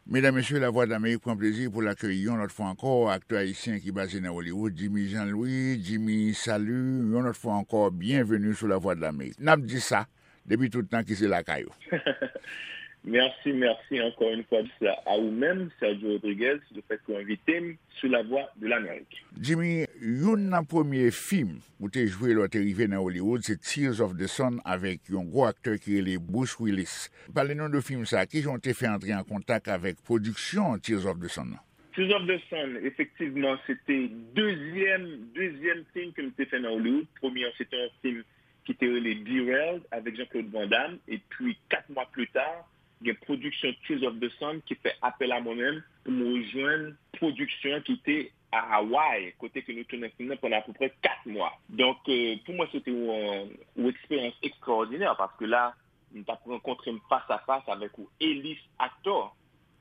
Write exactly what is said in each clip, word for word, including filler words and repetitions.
Medam, mesye, Lavwadlamerik pran plezi pou l akeyi yon lòt fwa ankò aktè ayisyen ki baze nan Hollywood, Jimmy Jean Louis. Jimmy, salut, yon lòt fwa ankò, byenveni sou Lavwadlamerik. N ap di sa depi tout tan ki se lakay ou. Mèsi, mèsi ankò yon fwa a ou menm, Sergio Rodriguez, lefètke w envite m sou Lavwadlamerik. Jimmy, youn nan premye fim ou te jwe lè w te rive nan Hollywood se Tears of the Sun avèk yon gwo aktè ki rele Bruce Willis. Pale nou de fim sa, kijan w te fè antre an kontak avèk pwodiksyon Tears of the Sun nan? Tears of the Sun, efektivman, se te dezyèm, dezyèm fim ke m te fè nan Hollywood. Premye an, se te yon fim ki te rele Derailed avèk Jean-Claude Van Damme. Epi, kat mwa pli ta, gen pwodiksyon Tears of the Sun ki fè apèl a mwen menm pou m rejwenn pwodiksyon an ki te a Hawaii, kote ke nou tounen fim nan pandan apeprè kat mwa. Donk, euh, pou mwen, se te yon, yon eksperyans ekstraòdinè, paske la, m t ap rankontre m fas a fas avèk yon elis aktè,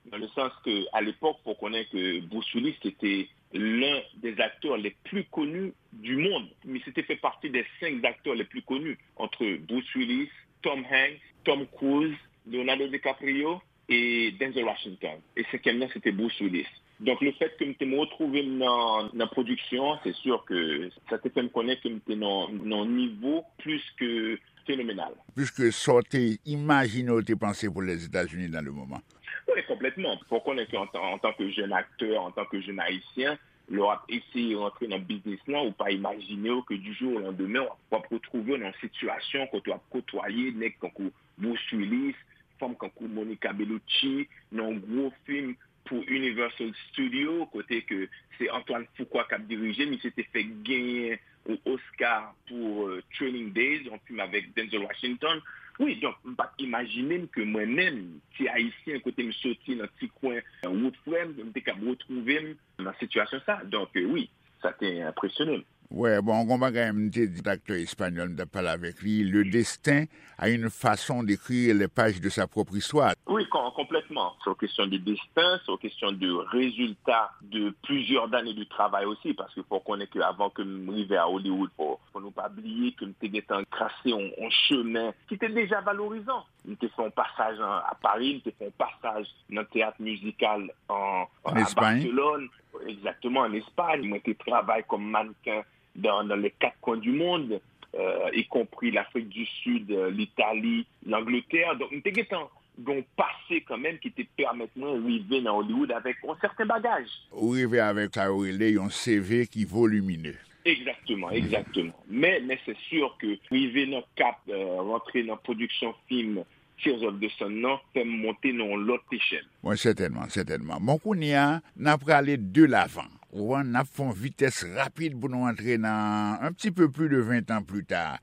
dans le sens que, à l'époque, faut connaître que Bruce Willis était l'un des acteurs les plus connus du monde. Mais c'était fait partie des cinq acteurs les plus connus, entre Bruce Willis, Tom Hanks, Tom Cruise, Leonardo DiCaprio et Denzel Washington. Et cinquième, c'était Bruce Willis. Donk, lefètke m te m retwouve m nan, nan pwodiksyon an, se si ke sa te fè m konnen ke m te nan, nan yon nivo plis ke fenomenal. Plis ke sa w te imajine w te panse pou Lèzetazini dans le moment. Wi, konplètman. Fò w konnen ke an, an tan ke jèn aktè, an tan ke jèn ayisyen, lè w ap eseye rantre nan biznis lan, ou pa imajine w ke du jour au lendemain, w ap, w ap retwouve w nan yon sitiyasyon kote w ap kotwaye nèg tankou Bruce Willis, fanm kankou Monica Bellucci, nan yon gwo fim pou Universal Studio, kote ke se Antoine Fuqua k ap dirije, misye te fèk genyen yon Oscar pou euh, Training Days, yon fim avèk Denzel Washington. Wi, donk, m pa t imajine m ke mwen menm, ti ayisyen, kote m soti nan ti kwen euh, wout frè m, m te kab retwouve m nan sitiyasyon sa. Donk, euh, wi, sa te enpresyone m. Wè, bon, gon bagay m te di aktè espanyòl m t ap pale avèk li, Le destin a une façon d'écrire les pages de sa propre histoire. Wi, kon, konplètman. Se yon kesyon de desten, se yon kesyon de rezilta de plizyè dane de travay osi, paske fò w konnen ke avan ke m rive a Hollywood, fò, fò nou pa bliye ke m te gentan trase yon, yon chemen ki te deja valorizan. M te fè yon pasaj an, a Pari, m te fè yon pasaj nan teyat mizikal an, an, a Barcelone. Exactement, en Espagne. Mwen te travay kòm mannequin dans, dans les quatre coins du monde, euh, y compris l'Afrique du Sud, euh, l'Italie, l'Angleterre. Donk, m te gentan gen yon pase kanmenm ki te pèmèt mwen rive nan Hollywood avèk yon sèten bagaj. Ou rive avèk sa yo rele yon C V ki volimine. Egzakteman, egzakteman. Men, men se si ke rive nan kap, euh, rantre nan pwodiksyon fim Tears of the Sun nan fè m monte nan yon lòt echèl. Bon, sètènman, sètènman. Bon, kounye a, n a prale de lavan. Ou konprann, n ap fè yon vitès rapid pou nou antre nan un petit peu plus de vingt ans plus tard.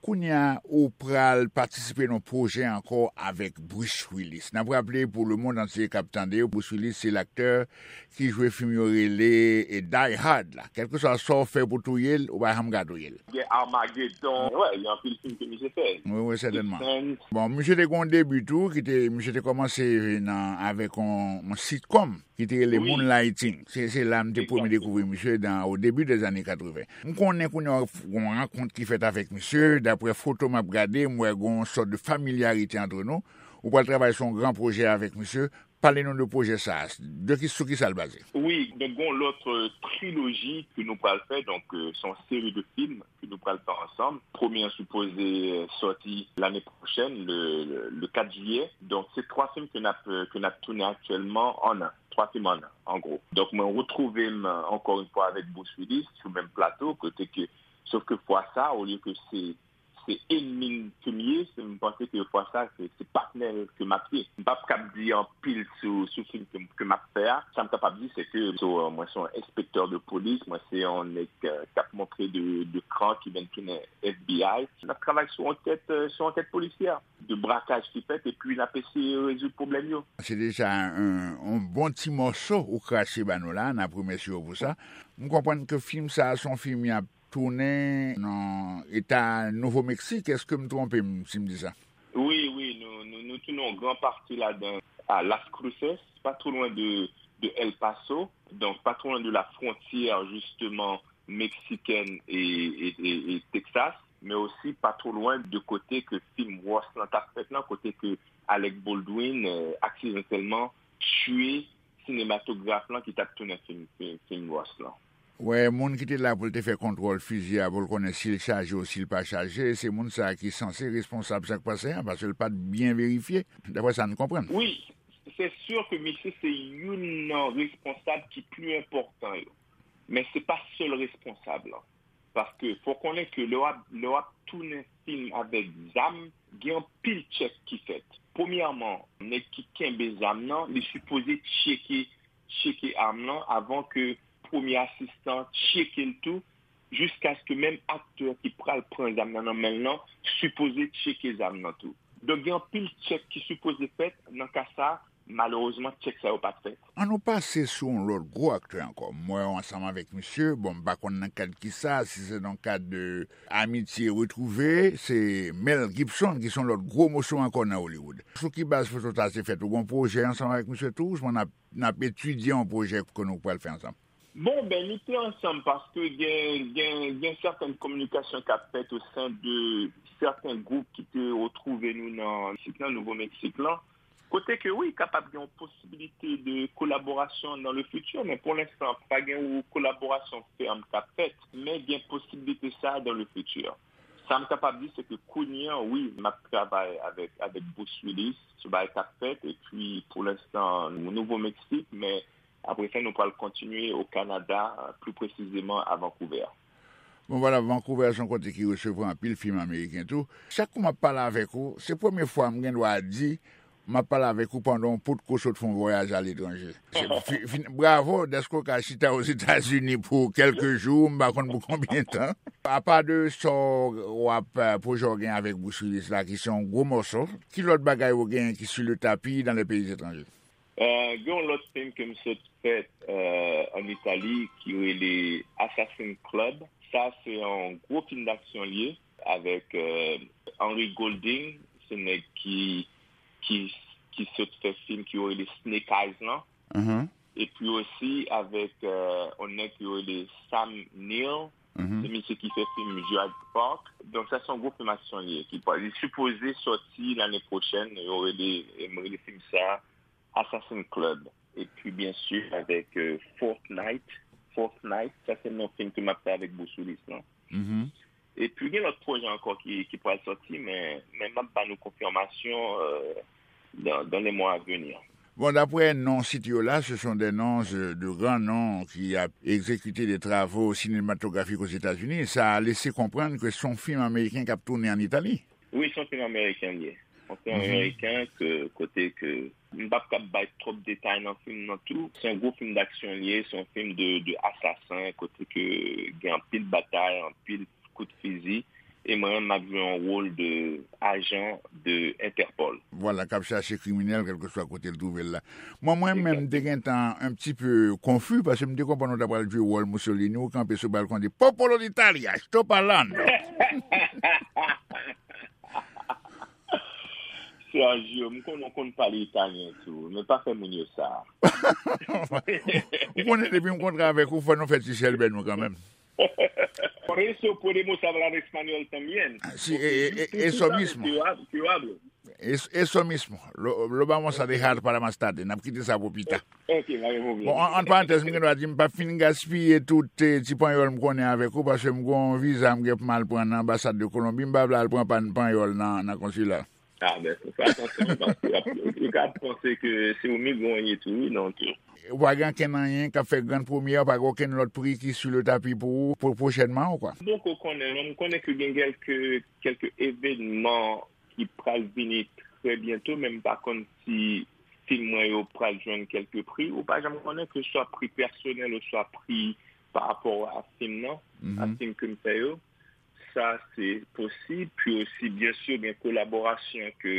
Kounye a, ou pral patisipe nan yon pwojè ankò avèk Bruce Willis. N ap raple pou lemonn antye k ap tande, Bruce Willis se laktè ki jwe fim yo rele e Die Hard la. Kèlkeswa sa w fè pou touye l, ou pa janm ka touye l. Gen Armageddon, wè, gen anpil fim ke misye fè. Wi, wi, sètènman. Bon, misye te gen yon debi tou, ki te, misye te kòmanse nan, avèk yon, yon sitcom ki te rele Moonlighting. Se, se la m te premye dekouvri misye dan, o debi dèzane katreven. M konnen kounye a w ap f-, gen yon rankont ki fèt avèk misye, daprè foto m ap gade, m wè gen yon sòt de familyarite antre nou. Ou pral travay sou yon gran pwojè avèk misye. Pale nou de pwojè sa a, de ki, sou ki sa l baze? Wi, donk gen yon lòt euh, triloji ke nou pral fè, donk euh, se yon seri de fim ke nou pral fè ansanm. Premye an sipoze euh, sòti lane pwochèn, le, le, le kat jiyè. Donk se twa fim ke n ap, euh, ke n ap tounen aktyèlman an an. Twa fim an an, an gwo. Donk mwen retwouve m ankò yon fwa avèk Bruce Willis sou menm plato, kote ke, sof ke fwa sa, olye ke se se enmi m ke m ye, se m panse ke fwa sa, se, se patnè ke m ap ye. M p ap kab di anpil sou, sou fim ke, ke m ap fè a. Sa m kapab di, se ke so, mwen se yon enspektè de polis, mwen se yon nèg euh, k ap montre de, de kran ki vin tounen F B I. N ap travay sou ankèt, euh, sou ankèt polisyè, de brakaj ki fèt, epi n ap eseye rezoud pwoblèm yo. Se deja yon, yon bon ti mòso ou krache ba nou la, n ap remèsye w pou sa. M konprann ke fim sa a se yon fim y ap tounen nan eta Nouvo Meksik, èske m twonpe m si m di sa? Wi, wi, nou, nou, nou tounen yon gran pati ladan a Las Cruces, pa two lwen de, de El Paso, donk pa two lwen de la frontière, justement, mexicaine et, et, et, et Texas, men osi pa two lwen de kote ke fim Rust lan t ap fèt lan, kote ke Alec Baldwin, euh, aksidantelman, tchwe sinematograf lan ki t ap tounen fim, fim, fim Ross lan. Wè, moun ki te la pou l te fè kontwòl fizi a, pou l konnen si l chaje ou si l pa chaje, se moun sa a ki sanse responsab sa k pase an, paske l pa t byen verifye, daprè sa n konprann. Wi, se si ke misye se youn nan responsab ki pli enpòtan yo, men se pa sèl responsab lan. Paske fò konnen ke lè w ap, lè w ap tounen fim avèk zam, gen anpil tchèk ki fèt. Premyèman, nèg ki kenbe zam nan, li sipoze tcheke, tcheke am lan avan ke premye asistan tcheke l tou, jiskaske menm aktè ki pral pran zam nan nan men l lan sipoze tcheke zam nan tou. Donk, gen anpil tchèk ki sipoze fèt nan ka sa a, malerezman, tchèk sa yo pa t fèt. An nou pase sou yon lòt gwo aktè ankò. M wè w ansanm avèk misye, bon, m pa konn nan kad kisa, si se nan kad de amitye retwouve, se Mel Gibson ki se yon lòt gwo moso ankò nan Hollywood. Sou ki baz foto sa te fèt? Ou gen yon pwojè ansanm avèk misye tou? Ousmwen n ap, n ap etidye yon pwojè ke nou pral fè ansanm? Bon, ben, nou te ansanm paske gen, gen, gen sèten kominikasyon k ap fèt o sen de sèten gwoup ki te retwouve nou nan Meksik lan, Nouvo Meksik lan. Kote ke wi, kapab gen yon posibilite de kolaborasyon dans le futur, men pou lenstan, pa gen yon kolaborasyon fèm k ap fèt, men gen posibilite sa dans le futur. Sa m kapab di, se ke kounye a, wi, m ap travay avèk, avèk Bruce Willis sou bagay k ap fèt, epi pou lenstan, Nouvo Meksik, men apre sa, nou pral kontinye o Kanada, pli presizeman a Vancouver. Bon, vwala, Vancouver se yon kote ki resevwa anpil fim ameriken tou. Chak kou m ap pale avèk ou, se premye fwa m gen dwa di, m ap pale avèk ou pandan yon potko sot fè yon vwayaj aletranje. Se fi-, fin-, bravo dèske w ka chita Ozetazini pou kèlke jou, m pa konn pou konbyen tan. Apa de sa w ap, eh, pwojè w gen avèk Bruce Willis la, ki se yon gwo mòso, ki lòt bagay ou gen ki sou le tapi dans les pays étrangers? Eh, gen yon lòt fim ke m sot fè, eh, ann Itali ki rele Assassin Club. Sa se yon gwo fim daksyon l ye avèk, eh, Henry Golding, se nèg ki, ki, ki sot fè fim ki yo rele Snake Eyes lan. Mhm. Epi osi avèk, eh, yon nèg ki yo rele Sam Neill. Mhm. Se misye ki fè fim Jurassic Park. Donk sa se yon gwo fim aksyon l ye. Ki pa, li sipoze sòti lane pwochèn. Yo rele, yo rele fim sa Assassin Club. Epi byen si avèk, eh, Fortnite. Fortnite, sa se non fim ke m ap fè avèk Bruce Willis lan. Mhm. Epi gen lòt pwojè ankò ki, ki pral sòti, men, men m ap ba nou konfimasyon, eh, dans, dans les mois à venir. Bon, daprè non site yo la, ce sont des noms, euh, de grands noms qui a exécuté des travaux cinématographiques aux États-Unis. Sa lese konprann ke se yon fim ameriken k ap tounen ann Itali. Wi, se yon fim ameriken l ye. Se yon fim ameriken ke, kote ke, m p ap kab bay twòp detay nan fim nan tou. Se yon gwo fim daksyon l ye, se yon fim de, de asasen, kote ke gen anpil batay, anpil kout fizi. E mwen menm, m ap jwe yon wòl de ajan de Interpol. Vwala, k ap chache kriminèl, kèlkeswa kote l twouve l la. Mwen, mwen menm, m te gentan un petit peu confus, paske m te konprann ou ta pral jwe wòl Mussolini, ou kanpe sou balkon di, Popolo d'Italia, sto parlando. Sergio, m konnen w konn pale italyen tou, men pa fè moun yo sa. Ou konnen depi m kontre avèk ou, fò nou fè ti chèlbè nou kanmenm. Por eso podemos hablar español también. Ah, sí, eh, eh, eh, eso mismo. Yo hab-, yo hablo. Es-, eso mismo. Lo, lo vamos a dejar para más tarde. N ap kite sa pou pita. Ok, pa gen pwoblèm. Bon, an, an parantèz, m gen dwa di, m p ap fin gaspiye tout, eh, ti panyòl m konnen avèk ou, paske m gen yon viza m gen pou m al pran nan anbasad de Kolonbi, m pa vle al pran pa-, panyòl nan, nan konsila. Ah, ben, fè atansyon, paske y ap, yo ka panse ke se yon migran w ye tou, wi, donk. Ou pa gen ankenn anyen k ap fè grann premyè, ou pa gen okenn lòt pri ki sou le tapi pou ou, pou pwochènman, ou kwa? M poko konnen, non, m konnen ke gen kèlke, kèlke evènman ki pral vini trè byento, men m pa konn si fim mwen yo pral jwenn kèlke pri. Ou pa janm konnen, ke swa pri pèsonèl oswa pri pa rapò a fim nan, a fim ke m fè yo. Sa se posib. Pi osi, byen si, gen kolaborasyon ke,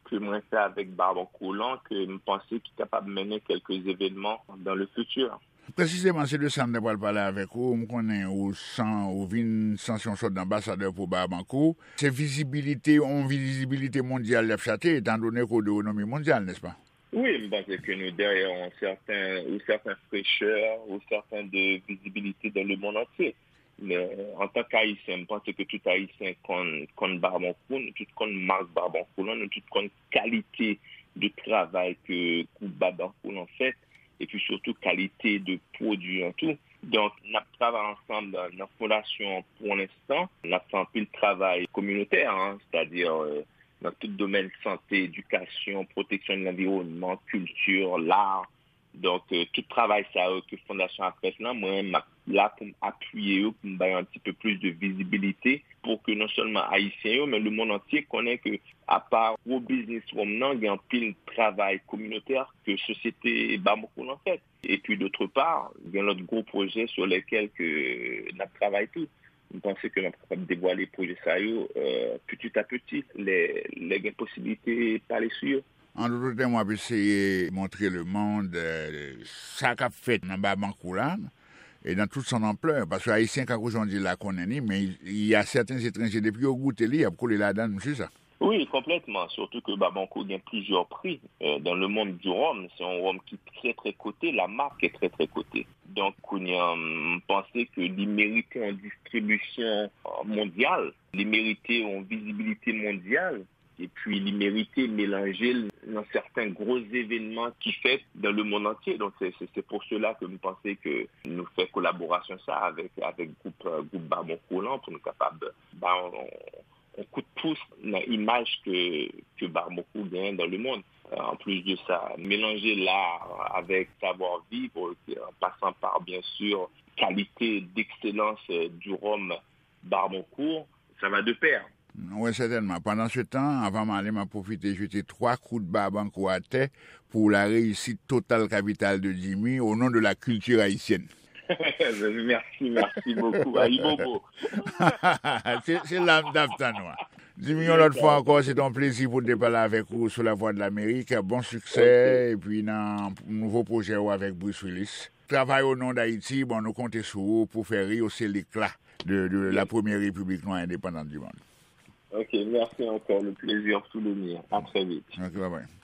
ke mwen fè avèk Barbancourt lan, ke m panse ki kapab mennen kèlke evènman dans le futur. Presizeman, se de sa m te pral pale avèk ou. M konnen ou san, ou vin sanse yon sòt de anbasadè pou Barbancourt. Se vizibilite, yon vizibilite mondyal y ap chache, etan done ke w de renome mondyal, nèspa? Wi, m panse ke nou dèyè yon sèten, yon sèten frechè, yon sèten de vizibilite dans le monde entier. Men, antan k Ayisyen, m panse ke tout Ayisyen konn, konn Barbancourt, nou tout konn mak Barbancourt lan, nou tout konn kalite de travay ke gwoup Babankou lan fè, epi sitou kalite de pwodui an tou. Donk, n ap travay ansanm nan fondasyon an pou lenstan. N ap fè anpil travay kominotè, en, sètadi, euh, nan tout domèn sante, edikasyon, pwoteksyon de lanviwònman, kilti, lar. Donk, euh, tout travay sa yo ke fondasyon ap fè lan, mwen, m ap la pou m apiye yo, pou m bay yon ti pe plis de vizibilite, pou ke non sèlman Ayisyen yo, men lemonn antye konnen ke apa gwo biznis wòm nan, gen anpil travay kominotè ke sosyete Bamako lan fè. Epi, d'autre part, gen lòt gwo pwojè sur lesquels ke n ap travay tou. M panse ke n ap kapab devwale pwojè sa yo, euh, petit à petit, lè, lè gen posiblite pale sou yo. An dout tèm, w ap eseye montre lemonn, euh, sa k ap fèt nan Babankou la, e nan tout son anplè, paske Ayisyen, kankou jan w di la, konnen li, men y a sèten etranje, depi yo goute li, y ap kole ladan l, m si sa. Wi, konplètman, sitou ke Babankou gen plizyè pri, euh, dans le monde du rhum. Se yon wòm ki trè, trè kote, la marque est très, très cotée. Donk, kounye a, m panse ke li merite yon distribisyon, euh, mondyal, li merite yon vizibilite mondyal, epi li merite melanje l nan sèten gwo evènman ki fèt dans le monde entier. Donk, se, se, se pou sela ke m panse ke nou fè kolaborasyon sa avèk, avèk gwoup, euh, gwoup Babankou lan pou nou kapab ba yon, yon kout pous nan imaj ke, ke Babankou genyen dans le monde. Euh, an plis de sa, melanje lar avèk savwa viv, euh, an pasan pa, byen si, kalite d'excellence, euh, du rhum Babankou, ça va de pair. Wi, sètènman. Pandan se tan, anvan m ale, m ap pwofite jete twa kout Babankou atè pour la réussite totale capitale de Jimmy, au nom de la culture haïtienne. Merci, merci beaucoup. Ayibobo. Se, se la m t ap tann ou a. Jimmy, yon lòt fwa ankò, se te yon plezi pou n te pale avèk ou sou Lavwadlamerik. Bon siksè, epi nan nouvo pwojè ou avèk Bruce Willis. Travay au nom d'Haïti, bon, nou konte sou ou pou fè reyose lekla de, de la première république noire indépendante du monde. Ok, merci encore. Le plaisir fut le mien. À très vite. Ok, bye bye.